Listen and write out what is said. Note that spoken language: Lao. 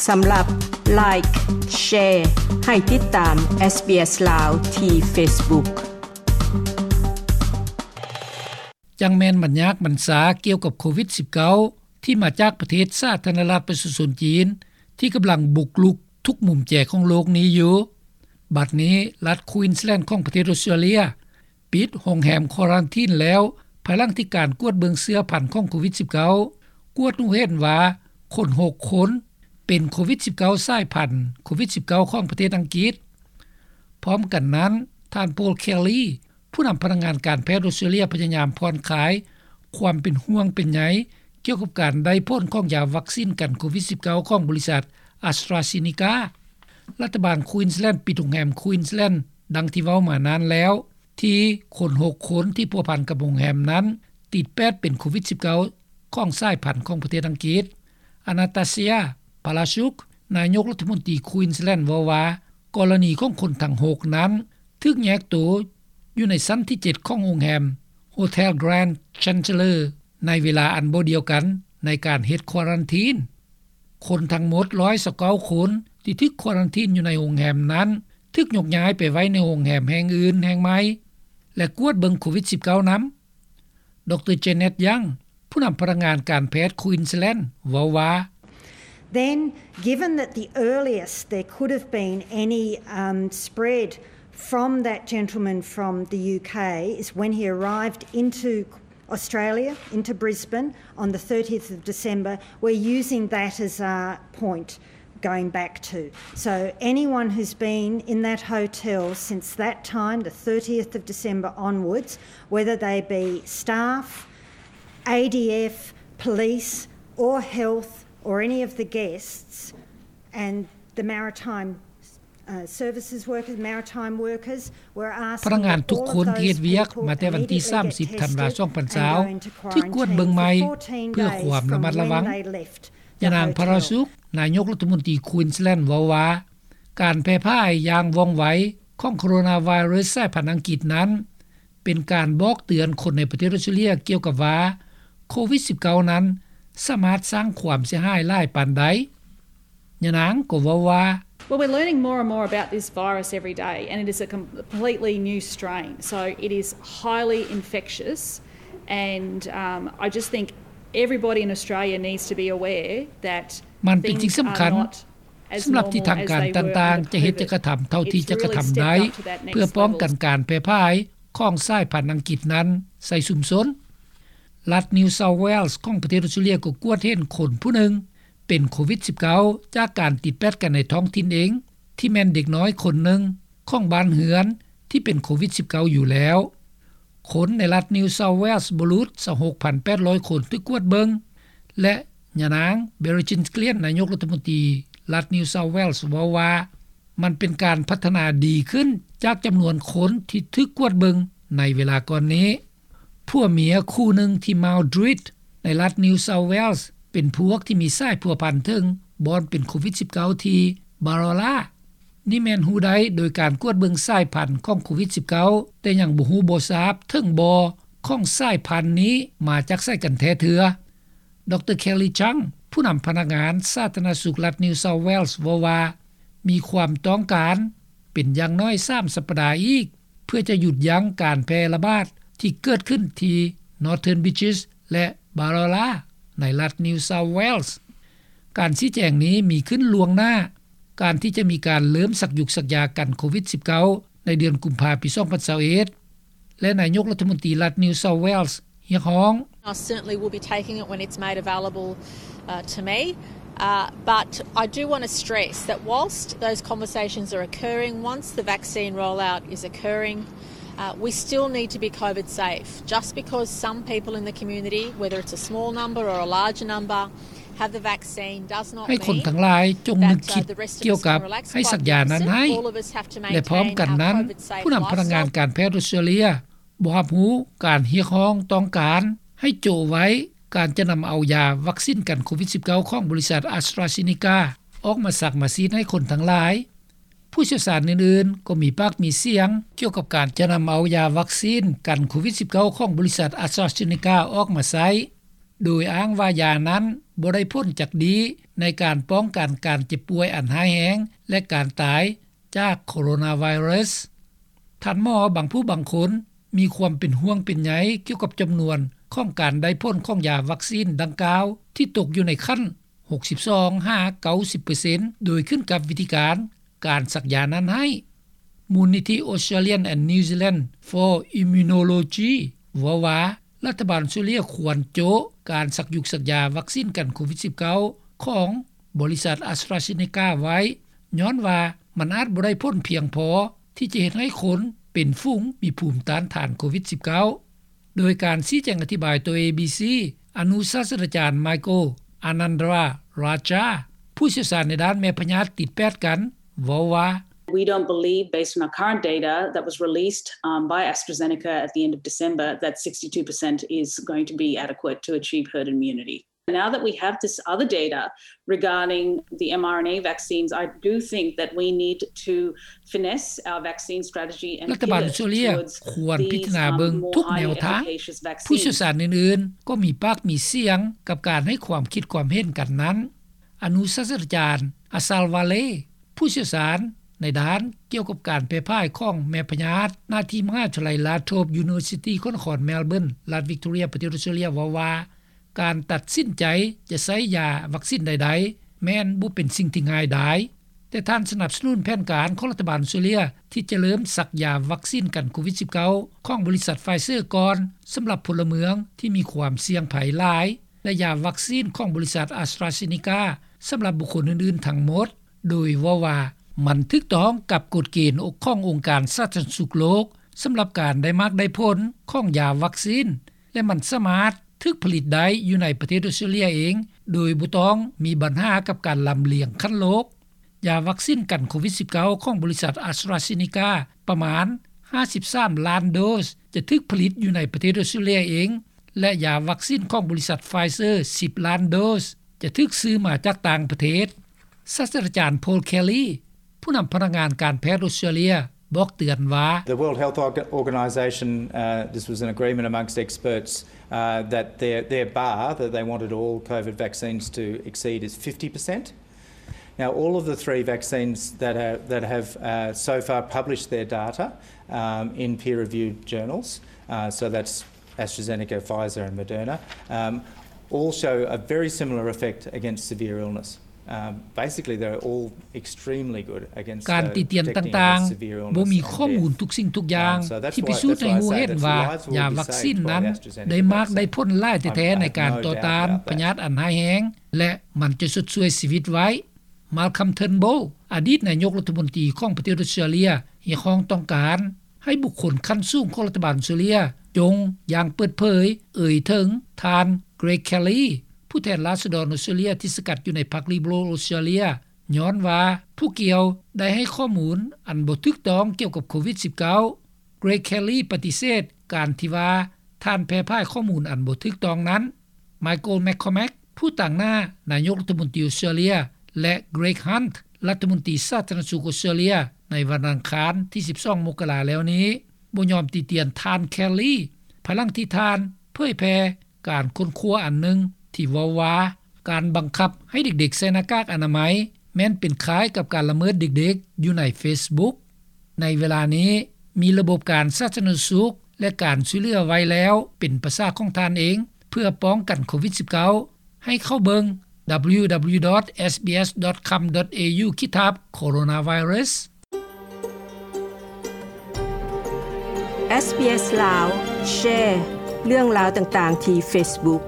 ສຳລັບ Like, Share ໃຫ້ຕິດຕາມ SBS ລາວ ທີ່ Facebook. ຈັ່ງແມ່ນບັນຍາກບັນຊາກ່ຽວກັບໂຄວິດ-19 ທີ່ມາຈາກປະເທດສາທາລະນະລັດປະຊາຊົນຈີນ ທີ່ກຳລັງບຸກລຸກທຸກມຸມແຈຂອງໂລກນີ້ຢູ່. ບັດນີ້ລັດ Queensland ຂອງປະເທດອອສເຕຣເລັຍ ປິດໂຮງແຮມຄວາຣັນທີນແລ້ວ ພາຍຫຼັງທີ່ການກວດເບິ່ງເຊື້ອພັນຂອງໂຄວິດ-19 ກວດຮູ້ເຫັນວ່າຄົນຫົກຄົນເປັນໂຄວິດ-19 ສາຍພັນໂຄວິດ-19 ຂອງປະເທດອັງກິດ. ພ້ອມກັນນັ້ນ, ທ່ານ Paul Kelly ຜູ້ນຳພະນັກງານການແພດອອສເຕຣເລັຍ ພະຍາຍາມຜ່ອນຄາຍຄວາມເປັນຫ່ວງເປັນໃຍກ່ຽວກັບການໄດ້ຜົນຂອງຢາວັກຊິນກັນໂຄວິດ-19 ຂອງບໍລິສັດ AstraZeneca. ລັດຖະບານ Queensland ປິດໂຮງແຮມ Queensland ດັ່ງທີ່ເວົ້າມານັ້ນແລ້ວ ທີ່ຄົນຫົກຄົນທີ່ພົວພັນກັບໂຮງແຮມນັ້ນ ຕິດແປດເປັນໂຄວິດ-19 ຂອງສາຍພັນຂອງປະເທດອັງກິດ. Anastasia Palaszczuk ນາຍົກລັດຖະມົນຕີ Queensland ເວົ້າວ່າ ກໍລະນີຂອງຄົນທັງຫົກນັ້ນ ຖືກແຍກໂຕຢູ່ໃນຊັ້ນທີເຈັດຂອງໂຮງແຮມ Hotel Grand Chancellor ໃນເວລາອັນບໍ່ດຽວກັນໃນການເຮັດຄວາຣັນທີນ. ຄົນທັງໝົດຮ້ອຍຊາວເກົ້າຄົນທີ່ຖືກຄວາຣັນທີນຢູ່ໃນໂຮງແຮມນັ້ນ ຖືກຍົກຍ້າຍໄປໄວ້ໃນໂຮງແຮມແຫ່ງອື່ນແຫ່ງໃໝ່ ແລະ ກວດເບິ່ງໂຄວິດ-19 ນຳ. ດຣ Janet Young ຜູ້ນຳພະນັກງານການແພດ Queensland ເວົ້າວ່າ Then, given that the earliest there could have been any, um, spread from that gentleman from the UK is when he arrived into Australia, into Brisbane, on the thirtieth of December, we're using that as a point going back to. So anyone who's been in that hotel since that time, the thirtieth of December onwards, whether they be staff, A D F, police or health or any of the guests, and the maritime ພະນັກງານທຸກຄົນທີ່ເຮັດວຽກມາແຕ່ວັນທີສາມສິບ ທັນວາ ສອງພັນຊາວ ຖືກກວດເບິ່ງໃໝ່ເພື່ອຄວາມລະມັດລະວັງ. ຍານາງ Palaszczuk ນາຍົກລັດຖະມົນຕີ Queensland ເວົ້າວ່າ ການແຜ່ພາຍຢ່າງວ່ອງໄວຂອງໂຄໂຣນາໄວຣັສສາຍພັນອັງກິດນັ້ນ ເປັນການບອກເຕືອນຄົນໃນປະເທດອອສເຕຣເລັຍກ່ຽວກັບວ່າ ໂຄວິດ-19 ນັ້ນສາມາດສ້າງຄວາມເສຍຫາຍຫຼາຍປານໃດ. ຍານາງກໍເວົ້າວ່າ Well, we're learning more and more about this virus every day, and it is a completely new strain, so it is highly infectious, and, um, I just think everybody in Australia needs to be aware that ມັນເປັນສິ່ງສຳຄັນສຳລັບທີ່ທາງການຕ່າງໆຈະເຮັດຈະກະທຳເທົ່າທີ່ຈະກະທຳໄດ້ ເພື່ອປ້ອງກັນການແຜ່ພາຍຂອງສາຍພັນອັງກິດນັ້ນໃສ່ຊຸມຊົນ. ລັດ New South Wales ຂອງປະເທດອອສເຕຣເລັຍກໍກວດເຫັນຄົນຜູ້ໜຶ່ງເປັນໂຄວິດ-19 ຈາກການຕິດແປດກັນໃນທ້ອງຖິ່ນເອງ ທີ່ແມ່ນເດັກນ້ອຍຄົນໜຶ່ງຂອງບ້ານເຮືອນທີ່ເປັນໂຄວິດ-19 ຢູ່ແລ້ວ. ຄົນໃນລັດ New South Wales ບໍ່ຫຼຸດ ຊາວຫົກພັນແປດຮ້ອຍຄົນຖືກກວດເບິ່ງ ແລະ ຍານາງ Brendan Gillian ນາຍົກລັດຖະມົນຕີລັດ New South Wales ເວົ້າວ່າ ມັນເປັນການພັດທະນາດີຂຶ້ນຈາກຈຳນວນຄົນທີ່ຖືກກວດເບິ່ງໃນເວລາກ່ອນນີ້. ຜົວເມຍຄູ່ໜຶ່ງທີ່ Mount Druitt ໃນລັດ New South Wales ເປັນພວກທີ່ມີສາຍພົວພັນເຖິງບ່ອນເປັນໂຄວິດ-19 ທີ່ Barola. ນີ້ແມ່ນຮູ້ໄດ້ໂດຍການກວດເບິ່ງສາຍພັນຂອງໂຄວິດ-19 ແຕ່ຍັງບໍ່ຮູ້ບໍ່ຊາບເຖິງບໍ່ຂອງສາຍພັນນີ້ມາຈາກໃສກັນແທ້ເທື່ອ. ດຣ Kelly Chang ຜູ້ນຳພະນັກງານສາທາລະນະສຸກລັດ New South Wales ເວົ້າວ່າ ມີຄວາມຕ້ອງການເປັນຢ່າງໜ້ອຍສາມສັບປະດາອີກ ເພື່ອຈະຢຸດຢັ້ງການແຜ່ລະບາດທີ່ເກີດຂຶ້ນທີ່ Northern Beaches ແລະ Barola ໃນລັດ New South Wales. ການຊີ້ແຈງນີ້ມີຂຶ້ນລ່ວງໜ້າ ການທີ່ຈະມີການເລີ່ມສັກຢຸກສັກຢາກັນໂຄວິດ-19 ໃນເດືອນກຸມພາປີສອງພັນຊາວເອັດ ແລະ ນາຍົກລັດຖະມົນຕີລັດ New South Wales ຮຽກຮ້ອງ. I certainly will be taking it when it's made available, uh, to me. Uh, but I do want to stress that whilst those conversations are occurring, once the vaccine rollout is occurring, uh, we still need to be COVID safe. Just because some people in the community, whether it's a small number or a larger number, ໃຫ້ຄົນທັງຫຼາຍຈົ່ງນຶກຄິດກ່ຽວກັບໃຫ້ສັກຢານັ້ນໃຫ້ ແລະ ພ້ອມກັນນັ້ນ ຜູ້ນຳພະນັກງານການແພດອອສເຕຣເລັຍບໍ່ຮັບຮູ້ການຮຽກຮ້ອງຕ້ອງການໃຫ້ໂຈະໄວ້ການຈະນຳເອົາຢາວັກຊິນກັນໂຄວິດ-19 ຂອງບໍລິສັດ AstraZeneca ອອກມາສັກມາສີດໃຫ້ຄົນທັງຫຼາຍ. ຜູ້ຊ່ຽວຊານອື່ນໆກໍມີປາກມີສຽງກ່ຽວກັບການຈະນຳເອົາຢາວັກຊິນກັນໂຄວິດ-19 ຂອງບໍລິສັດ AstraZeneca ອອກມາໃຊ້ ໂດຍອ້າງວ່າຢານັ້ນ ບໍ່ໄດ້ຜົນຈັກດີໃນການປ້ອງກັນການເຈັບປ່ວຍອັນຮ້າຍແຮງ ແລະ ການຕາຍຈາກໂຄໂຣນາໄວຣັສ. ທ່ານໝໍບາງຜູ້ບາງຄົນມີຄວາມເປັນຫ່ວງເປັນໃຍກ່ຽວກັບຈຳນວນຂອງການໄດ້ຜົນຂອງຢາວັກຊີນດັ່ງກ່າວ ທີ່ຕົກຢູ່ໃນຂັ້ນ ຫົກສິບສອງຫາເກົ້າສິບເປີເຊັນ ໂດຍຂຶ້ນກັບວິທີການ ການສັກຢານັ້ນໃຫ້. ມູນນິທິ Australian and New Zealand for Immunology ເວົ້າວ່າ ລັດຖະບານອອສເຕຣເລັຽຄວນໂຈະການສັກຍຸກສັກຢາວັກຊີນກັນໂຄວິດສິບເກົ້າ ຂອງບໍລິສັດ AstraZeneca ໄວ້ ຍ້ອນວ່າມັນອາດບໍ່ໄດ້ຜົນພຽງພໍທີ່ຈະເຮັດໃຫ້ຄົນເປັນຝູງມີພູມຕ້ານທານໂຄວິດສິບເກົ້າ. ໂດຍການຊີ້ແຈງອະທິບາຍຕໍ່ ເອບີຊີ ອະນຸສາດສະດາຈານ Michael Anandarajah ຜູ້ຊ່ຽວຊານໃນດ້ານແມ່ພະຍາດຕິດແປດກັນ ເວົ້າວ່າ We don't believe, based on our current data that was released, um, by AstraZeneca at the end of December, that sixty-two percent is going to be adequate to achieve herd immunity. Now that we have this other data regarding the mRNA vaccines, I do think that we need to finesse our vaccine strategy and ລັດຖະບານອອສເຕຣເລັຽຄວນພິຈາລະນາເບິ່ງທຸກແນວທາງ. ຜູ້ຊ່ຽວຊານອື່ນໆກໍມີປາກມີສຽງກັບການໃຫ້ຄວາມຄິດຄວາມເຫັນກັນນັ້ນ. ອະນຸສາດສະດາຈານ Asal Wale ຜູ້ຊ່ຽວຊານໃນດ້ານກ່ຽວກັບການແຜ່ພາຍຂອງແມ່ພະຍາດ ນາທີ່ມະຫາວິທະຍາໄລ Latrobe University ຂອງນະຄອນ Melbourne ລັດ Victoria ປະເທດອອສເຕຣເລັຽ ເວົ້າວ່າ ການຕັດສິນໃຈຈະໃຊ້ຢາວັກຊີນໃດໆ ແມ່ນບໍ່ເປັນສິ່ງທີ່ງ່າຍດາຍ, ແຕ່ທ່ານສະໜັບສະໜູນແຜນການຂອງລັດຖະບານອອສເຕຣເລັຽ ທີ່ຈະເລີ່ມສັກຢາວັກຊີນກັນໂຄວິດສິບເກົ້າ ຂອງບໍລິສັດ Pfizer ກ່ອນ ສຳລັບພົນລະເມືອງທີ່ມີຄວາມສ່ຽງໄພຫຼາຍ ແລະ ຢາວັກຊີນຂອງບໍລິສັດ AstraZeneca ສຳລັບບຸກຄົນອື່ນໆທັງໝົດ, ໂດຍເວົ້າວ່າ ມັນຖືກຕ້ອງກັບກົດເກນຂອງອົງການສາທາລະນະສຸກໂລກ ສຳລັບການໄດ້ໝາກໄດ້ຜົນຂອງຢາວັກຊີນ ແລະ ມັນສາມາດຖືກຜະລິດໄດ້ຢູ່ໃນປະເທດອອສເຕຣເລັຽເອງ ໂດຍບໍ່ຕ້ອງມີບັນຫາກັບການລຳລຽງຂັ້ນໂລກ. ຢາວັກຊີນກັນໂຄວິດສິບເກົ້າ ຂອງບໍລິສັດ AstraZeneca ປະມານຫ້າສິບສາມລ້ານໂດສ ຈະຖືກຜະລິດຢູ່ໃນປະເທດອອສເຕຣເລັຽເອງ ແລະ ຢາວັກຊີນຂອງບໍລິສັດ Pfizer ສິບລ້ານໂດສ ຈະຖືກຊື້ມາຈາກຕ່າງປະເທດ. ສາດສະດາຈານ Paul Kelly ຜູ້ນຳພະນັກງານການແພດອອສເຕຣເລັຽ ບອກເຕືອນວ່າ The World Health Org- Organization, uh, this was an agreement amongst experts, uh, that their, their bar, that they wanted all COVID vaccines to exceed, is fifty percent. Now, all of the three vaccines that are, that have, uh, so far published their data, um, in peer-reviewed journals, uh, so that's AstraZeneca, Pfizer and Moderna, um, all show a very similar effect against severe illness. Um, basically, they're all extremely good against, uh, protecting against severe illness and death. ການຕິຕຽນຕ່າງໆ ບໍ່ມີຂໍ້ມູນທຸກສິ່ງທຸກຢ່າງ um, so that's why, that's why I say that lives will be saved by the AstraZeneca vaccine. ທີ່ພິສູດໃຫ້ຮູ້ເຫັນວ່າ ຢາວັກຊີນນັ້ນໄດ້ມາກໄດ້ຜົນຫຼາຍແທ້ໆ ໃນການຕໍ່ຕ້ານພະຍາດອັນຮ້າຍແຮງ ແລະ ມັນຈະຊົດຊ່ວຍຊີວິດໄວ້. Malcolm Turnbull ອະດີດນາຍົກລັດຖະມົນຕີຂອງປະເທດອອສເຕຣເລັຽ ຮຽກຮ້ອງຕ້ອງການໃຫ້ບຸກຄົນຂັ້ນສູງຂອງລັດຖະບານອອສເຕຣເລັຽ ຈົ່ງຢ່າງເປີດເຜີຍເອີ່ຍເຖິງທ່ານ Greg Kelly ຜູ້ແທນລາຊະດອນອອສເຕຣເລັຽທີ່ສັງກັດຢູ່ໃນພັກ Liberal Australia ຍ້ອນວ່າຜູ້ກ່ຽວໄດ້ໃຫ້ຂໍ້ມູນອັນບໍ່ຖືກຕ້ອງກ່ຽວກັບໂຄວິດສິບເກົ້າ. Greg Kelly ປະຕິເສດການທີ່ວ່າທ່ານແຜ່ພາຍຂໍ້ມູນອັນບໍ່ຖືກຕ້ອງນັ້ນ. Michael McCormack ຜູ້ຕາງໜ້ານາຍົກລັດຖະມົນຕີອອສເຕຣເລັຽ ແລະ Greg Hunt ລັດຖະມົນຕີສາທາລະນະສຸກອອສເຕຣເລັຽ ໃນວັນອັງຄານທີສິບສອງ ມົກກະລາແລ້ວນີ້ ບໍ່ຍອມຕິຕຽນທ່ານ Kelly ພາຍຫຼັງທີ່ທ່ານເຜີຍແຜ່ການຄົ້ນຄວ້າອັນໜຶ່ງທີ່ເວົ້າວ່າ ການບັງຄັບໃຫ້ເດັກໆໃສ່ໜ້າກາກອະນາໄມ ແມ່ນເປັນຄ້າຍກັບການລະເມີດເດັກໆຢູ່ໃນ Facebook. ໃນເວລານີ້ ມີລະບົບການສາທາລະນະສຸກ ແລະ ການຊ່ວຍເຫຼືອໄວ້ແລ້ວເປັນປະສາຂອງທ່ານເອງ ເພື່ອປ້ອງກັນໂຄວິດສິບເກົ້າ ໃຫ້ເຂົ້າເບິ່ງ www.sbs.com.au ຂີດທັບ coronavirus. SBS ລາວ ແຊເລື່ອງລາວຕ່າງໆທີ່ Facebook